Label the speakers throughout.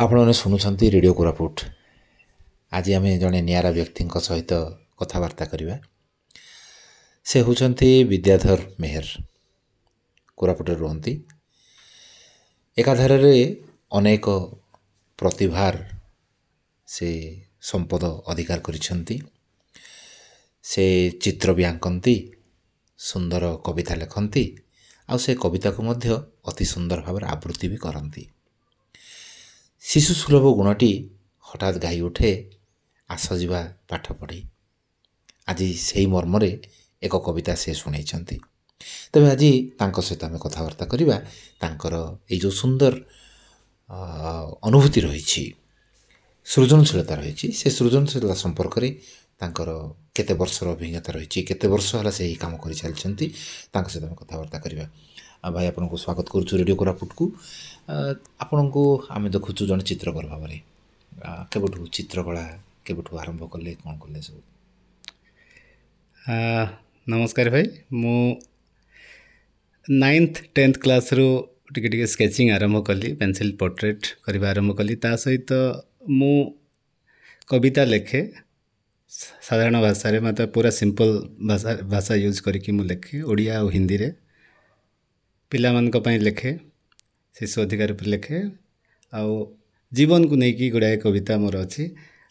Speaker 1: ଆପଣମାନେ ଶୁଣୁଛନ୍ତି ରେଡ଼ିଓ କୋରାପୁଟ। ଆଜି ଆମେ ଜଣେ ନିଆରା ବ୍ୟକ୍ତିଙ୍କ ସହିତ କଥାବାର୍ତ୍ତା କରିବା। ସେ ହେଉଛନ୍ତି ବିଦ୍ୟାଧର ମେହେର, କୋରାପୁଟରେ ରୁହନ୍ତି। ଏକାଧାରରେ ଅନେକ ପ୍ରତିଭାର ସେ ସମ୍ପଦ ଅଧିକାର କରିଛନ୍ତି। ସେ ଚିତ୍ର ବି ଆଙ୍କନ୍ତି, ସୁନ୍ଦର କବିତା ଲେଖନ୍ତି, ଆଉ ସେ କବିତାକୁ ମଧ୍ୟ ଅତି ସୁନ୍ଦର ଭାବରେ ଆବୃତ୍ତି ବି କରନ୍ତି। ଶିଶୁ ସୁଲଭ ଗୁଣଟି ହଠାତ୍ ଗାଇ ଉଠେ, ଆସ ଯିବା ପାଠ ପଢ଼ି। ଆଜି ସେଇ ମର୍ମରେ ଏକ କବିତା ସେ ଶୁଣାଇଛନ୍ତି। ତେବେ ଆଜି ତାଙ୍କ ସହିତ ଆମେ କଥାବାର୍ତ୍ତା କରିବା। ତାଙ୍କର ଏଇ ଯେଉଁ ସୁନ୍ଦର ଅନୁଭୂତି ରହିଛି, ସୃଜନଶୀଳତା ରହିଛି, ସେ ସୃଜନଶୀଳତା ସମ୍ପର୍କରେ ତାଙ୍କର କେତେ ବର୍ଷର ଅଭିଜ୍ଞତା ରହିଛି, କେତେ ବର୍ଷ ହେଲା ସେ ଏହି କାମ କରିଚାଲିଛନ୍ତି, ତାଙ୍କ ସହିତ ଆମେ କଥାବାର୍ତ୍ତା କରିବା। ଆଉ ଭାଇ, ଆପଣଙ୍କୁ ସ୍ୱାଗତ କରୁଛୁ ରେଡ଼ିଓ କୋରାପୁଟକୁ। ଆପଣଙ୍କୁ ଆମେ ଦେଖୁଛୁ ଜଣେ ଚିତ୍ରକର ଭାବରେ। କେବେଠୁ ଚିତ୍ରକଳା କେବେଠୁ ଆରମ୍ଭ କଲେ, କ'ଣ କଲେ ସବୁ?
Speaker 2: ନମସ୍କାର ଭାଇ। ମୁଁ 9th 10th କ୍ଲାସ୍ରୁ ଟିକେ ଟିକେ ସ୍କେଚିଂ ଆରମ୍ଭ କଲି, ପେନସିଲ୍ ପୋର୍ଟ୍ରେଟ୍ କରିବା ଆରମ୍ଭ କଲି। ତା ସହିତ ମୁଁ କବିତା ଲେଖେ ସାଧାରଣ ଭାଷାରେ, ମୋତେ ପୁରା ସିମ୍ପଲ୍ ଭାଷା ୟୁଜ୍ କରିକି ମୁଁ ଲେଖେ, ଓଡ଼ିଆ ଆଉ ହିନ୍ଦୀରେ। ପିଲାମାନଙ୍କ ପାଇଁ ଲେଖେ, ଶିଶୁ ଅଧିକାର ଉପରେ ଲେଖେ, ଆଉ ଜୀବନକୁ ନେଇକି ଗୁଡ଼ାଏ କବିତା ମୋର ଅଛି।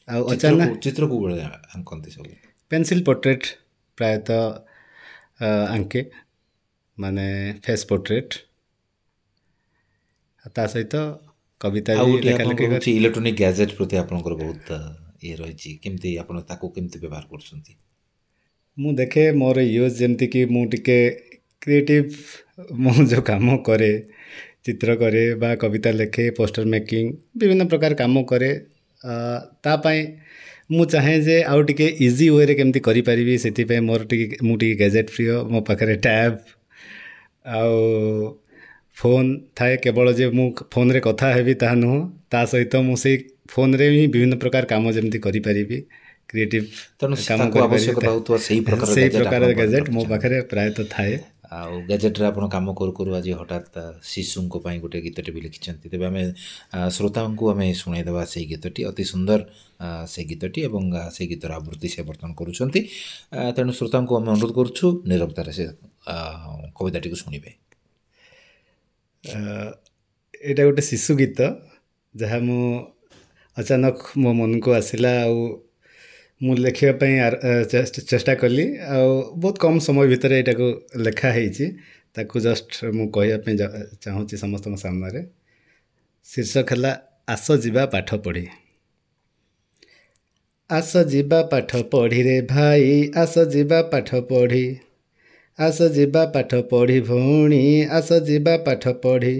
Speaker 2: ଆଉ ଅଚାନକ
Speaker 1: ଚିତ୍ର କୋଉ ଭଳିଆ ଆଙ୍କନ୍ତି ସବୁ?
Speaker 2: ପେନସିଲ୍ ପୋର୍ଟ୍ରେଟ୍ ପ୍ରାୟତଃ ଆଙ୍କେ, ମାନେ ଫେସ୍ ପୋର୍ଟ୍ରେଟ୍, ତା ସହିତ କବିତା
Speaker 1: ଆଉ
Speaker 2: ବି
Speaker 1: ଗୋଟିଏ
Speaker 2: ଲେଖା ଲେଖି
Speaker 1: ଆପଣଙ୍କର
Speaker 2: କରେ।
Speaker 1: ହେଉଛି ଇଲେକ୍ଟ୍ରୋନିକ୍ ଗ୍ୟାଜେଟ୍ ପ୍ରତି ଆପଣଙ୍କର ବହୁତ ଇଏ ରହିଛି। କେମିତି ଆପଣ ତାକୁ କେମିତି ବ୍ୟବହାର କରୁଛନ୍ତି?
Speaker 2: ମୁଁ ଦେଖେ ମୋର ୟୁଜ୍, ଯେମିତିକି ମୁଁ ଟିକେ କ୍ରିଏଟିଭ୍। ମୁଁ ଯେଉଁ କାମ କରେ, ଚିତ୍ର କରେ ବା କବିତା ଲେଖେ, ପୋଷ୍ଟର ମେକିଂ, ବିଭିନ୍ନ ପ୍ରକାର କାମ କରେ, ତା ପାଇଁ ମୁଁ ଚାହେଁ ଯେ ଆଉ ଟିକେ ଇଜି ୱେରେ କେମିତି କରିପାରିବି। ସେଥିପାଇଁ ମୋର ଟିକେ, ମୁଁ ଟିକେ ଗ୍ୟାଜେଟ୍ ପ୍ରିୟ। ମୋ ପାଖରେ ଟ୍ୟାବ୍ ଆଉ ଫୋନ୍ ଥାଏ। କେବଳ ଯେ ମୁଁ ଫୋନ୍ରେ କଥା ହେବି ତାହା ନୁହଁ, ତା ସହିତ ମୁଁ ସେଇ ଫୋନ୍ରେ ହିଁ ବିଭିନ୍ନ ପ୍ରକାର କାମ ଯେମିତି କରିପାରିବି, କ୍ରିଏଟିଭ୍
Speaker 1: ତେଣୁ
Speaker 2: କାମ
Speaker 1: ତାକୁ
Speaker 2: କରିପାରିବି,
Speaker 1: ଆବଶ୍ୟକତା ହେଉଥିବା ସେଇ ପ୍ରକାର
Speaker 2: ସେଇ
Speaker 1: ଗ୍ୟାଜେଟ୍
Speaker 2: ପ୍ରକାର
Speaker 1: ଆପଣ ବର୍ତ୍ତମାନ
Speaker 2: ଗ୍ୟାଜେଟ୍ ମୋ
Speaker 1: ରଖିଛନ୍ତି।
Speaker 2: ପାଖରେ ପ୍ରାୟତଃ ଥାଏ।
Speaker 1: ଆଉ ଗ୍ୟାଜେଟ୍ରେ ଆପଣ କାମ କରୁ କରୁ ଆଜି ହଠାତ୍ ଶିଶୁଙ୍କ ପାଇଁ ଗୋଟେ ଗୀତଟି ବି ଲେଖିଛନ୍ତି। ତେବେ ଆମେ ଶ୍ରୋତାଙ୍କୁ ଆମେ ଶୁଣାଇଦେବା ସେଇ ଗୀତଟି, ଅତି ସୁନ୍ଦର ସେ ଗୀତଟି, ଏବଂ ସେଇ ଗୀତର ଆବୃତ୍ତି ସେ ବର୍ତ୍ତମାନ କରୁଛନ୍ତି। ତେଣୁ ଶ୍ରୋତାଙ୍କୁ ଆମେ ଅନୁରୋଧ କରୁଛୁ, ନିରବତାରେ ସେ କବିତାଟିକୁ ଶୁଣିବେ।
Speaker 2: ଏଇଟା ଗୋଟେ ଶିଶୁ ଗୀତ, ଯାହା ମୁଁ ଅଚାନକ ମୋ ମନକୁ ଆସିଲା ଆଉ ମୁଁ ଲେଖିବା ପାଇଁ ଚେଷ୍ଟା କଲି, ଆଉ ବହୁତ କମ୍ ସମୟ ଭିତରେ ଏଇଟାକୁ ଲେଖା ହେଇଛି। ତାକୁ ଜଷ୍ଟ ମୁଁ କହିବା ପାଇଁ ଚାହୁଁଛି ସମସ୍ତଙ୍କ ସାମ୍ନାରେ। ଶୀର୍ଷକ ହେଲା ଆସ ଯିବା ପାଠ ପଢ଼ି। ଆସ ଯିବା ପାଠ ପଢ଼ିରେ ଭାଇ, ଆସ ଯିବା ପାଠ ପଢ଼ି। ଆସ ଯିବା ପାଠ ପଢ଼ି ଭଉଣୀ, ଆସ ଯିବା ପାଠ ପଢ଼ି।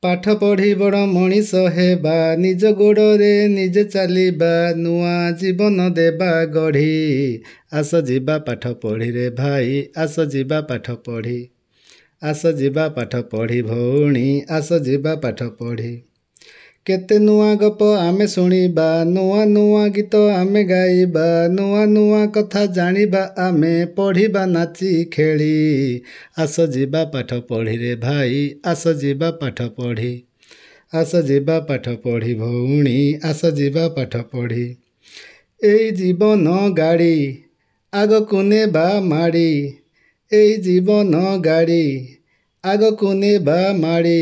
Speaker 2: ପାଠ ପଢ଼ି ବଡ଼ ମଣିଷ ହେବା, ନିଜ ଗୋଡ଼ରେ ନିଜେ ଚାଲିବା, ନୂଆ ଜୀବନ ଦେବା ଗଢ଼ି। ଆସ ଯିବା ପାଠ ପଢ଼ିରେ ଭାଇ, ଆସ ଯିବା ପାଠ ପଢ଼ି। ଆସ ଯିବା ପାଠ ପଢ଼ି ଭଉଣୀ, ଆସ ଯିବା ପାଠ ପଢ଼ି। କେତେ ନୂଆ ଗପ ଆମେ ଶୁଣିବା, ନୂଆ ନୂଆ ଗୀତ ଆମେ ଗାଇବା, ନୂଆ ନୂଆ କଥା ଜାଣିବା ଆମେ, ପଢ଼ିବା ନାଚି ଖେଳି। ଆସ ଯିବା ପାଠ ପଢ଼ିରେ ଭାଇ, ଆସ ଯିବା ପାଠ ପଢ଼ି। ଆସ ଯିବା ପାଠ ପଢ଼ି ଭଉଣୀ, ଆସ ଯିବା ପାଠ ପଢ଼ି। ଏଇ ଜୀବନ ଗାଡ଼ି ଆଗକୁ ନେବା ମାଡ଼ି, ଏଇ ଜୀବନ ଗାଡ଼ି ଆଗକୁ ନେବା ମାଡ଼ି।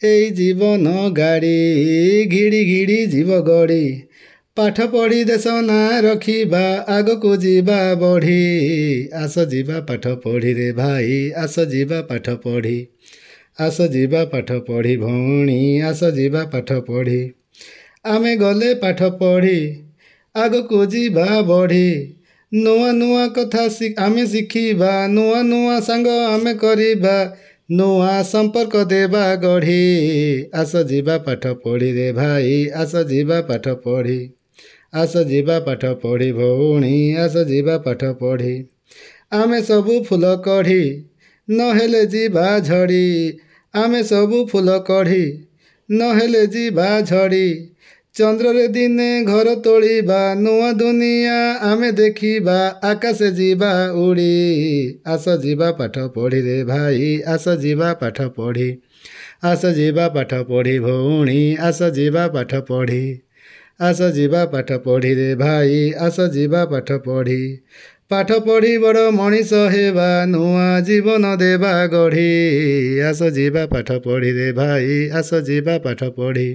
Speaker 2: ଏଇ ଜୀବନ ଗାଡ଼ି ଘିଡ଼ି ଘିଡ଼ି ଯିବ ଗଡ଼ି। ପାଠ ପଢ଼ି ଦେଶ ନାଁ ରଖିବା, ଆଗକୁ ଯିବା ବଢ଼ି। ଆସ ଯିବା ପାଠ ପଢ଼ିରେ ଭାଇ, ଆସ ଯିବା ପାଠ ପଢ଼ି। ଆସ ଯିବା ପାଠ ପଢ଼ି ଭଉଣୀ, ଆସ ଯିବା ପାଠ ପଢ଼ି। ଆମେ ଗଲେ ପାଠ ପଢ଼ି ଆଗକୁ ଯିବା ବଢ଼ି, ନୂଆ ନୂଆ କଥା ଆମେ ଶିଖିବା, ନୂଆ ନୂଆ ସାଙ୍ଗ ଆମେ କରିବା, ନୂଆ ସମ୍ପର୍କ ଦେବା ଗଢ଼ି। ଆସ ଯିବା ପାଠ ପଢ଼ିରେ ଭାଇ, ଆସ ଯିବା ପାଠ ପଢ଼ି। ଆସ ଯିବା ପାଠ ପଢ଼ି ଭଉଣୀ, ଆସ ଯିବା ପାଠ ପଢ଼ି। ଆମେ ସବୁ ଫୁଲ କଢ଼ି ନହେଲେ ଯିବା ଝଡ଼ି, ଆମେ ସବୁ ଫୁଲ କଢ଼ି ନହେଲେ ଯିବା ଝଡ଼ି। ଚନ୍ଦ୍ରରେ ଦିନେ ଘର ତୋଳିବା, ନୂଆ ଦୁନିଆ ଆମେ ଦେଖିବା, ଆକାଶେ ଯିବା ଉଡ଼ି। ଆସ ଯିବା ପାଠ ପଢ଼ିରେ ଭାଇ, ଆସ ଯିବା ପାଠ ପଢ଼ି। ଆସ ଯିବା ପାଠ ପଢ଼ି ଭଉଣୀ, ଆସ ଯିବା ପାଠ ପଢ଼ି। ଆସ ଯିବା ପାଠ ପଢ଼ି ରେ ଭାଇ, ଆସ ଯିବା ପାଠ ପଢ଼ି। ପାଠ ପଢ଼ି ବଡ଼ ମଣିଷ ହେବା, ନୂଆ ଜୀବନ ଦେବା ଗଢ଼ି। ଆସ ଯିବା ପାଠ ପଢ଼ି ରେ ଭାଇ, ଆସ ଯିବା ପାଠ ପଢ଼ି।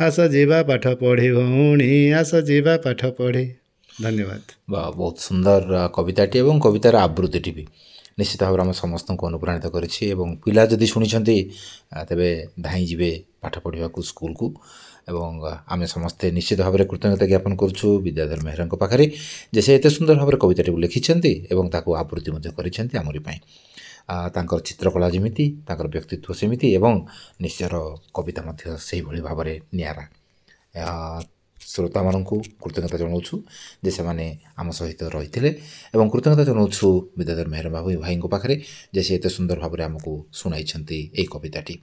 Speaker 2: ଆସ ଯିବା ପାଠ ପଢ଼ି ଭଉଣୀ, ଆସ ଯିବା ପାଠ ପଢ଼ି। ଧନ୍ୟବାଦ।
Speaker 1: ବା, ବହୁତ ସୁନ୍ଦର କବିତାଟି ଏବଂ କବିତାର ଆବୃତ୍ତିଟି ବି ନିଶ୍ଚିତ ଭାବରେ ଆମ ସମସ୍ତଙ୍କୁ ଅନୁପ୍ରାଣିତ କରିଛି ଏବଂ ପିଲା ଯଦି ଶୁଣିଛନ୍ତି, ତେବେ ଧାଇଁ ଯିବେ ପାଠ ପଢ଼ିବାକୁ ସ୍କୁଲକୁ। ଏବଂ ଆମେ ସମସ୍ତେ ନିଶ୍ଚିତ ଭାବରେ କୃତଜ୍ଞତା ଜ୍ଞାପନ କରୁଛୁ ବିଦ୍ୟାଧର ମେହେରଙ୍କ ପାଖରେ ଯେ ସେ ଏତେ ସୁନ୍ଦର ଭାବରେ କବିତାଟିକୁ ଲେଖିଛନ୍ତି ଏବଂ ତାକୁ ଆବୃତ୍ତି ମଧ୍ୟ କରିଛନ୍ତି ଆମରି ପାଇଁ। ତାଙ୍କର ଚିତ୍ରକଳା ଯେମିତି, ତାଙ୍କର ବ୍ୟକ୍ତିତ୍ୱ ସେମିତି ଏବଂ ନିଜର କବିତା ମଧ୍ୟ ସେଇଭଳି ଭାବରେ ନିଆରା। ଶ୍ରୋତାମାନଙ୍କୁ କୃତଜ୍ଞତା ଜଣାଉଛୁ ଯେ ସେମାନେ ଆମ ସହିତ ରହିଥିଲେ ଏବଂ କୃତଜ୍ଞତା ଜଣାଉଛୁ ବିଦ୍ୟାଧର ମେହେର ବାବୁ ଭାଇଙ୍କ ପାଖରେ ଯେ ସେ ଏତେ ସୁନ୍ଦର ଭାବରେ ଆମକୁ ଶୁଣାଇଛନ୍ତି ଏଇ କବିତାଟି।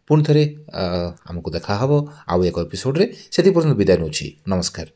Speaker 1: ପୁଣି ଥରେ ଆମକୁ ଦେଖାହେବ ଆଉ ଏକ ଏପିସୋଡ଼ରେ, ସେଥି ପର୍ଯ୍ୟନ୍ତ ବିଦାୟ ନେଉଛି। ନମସ୍କାର।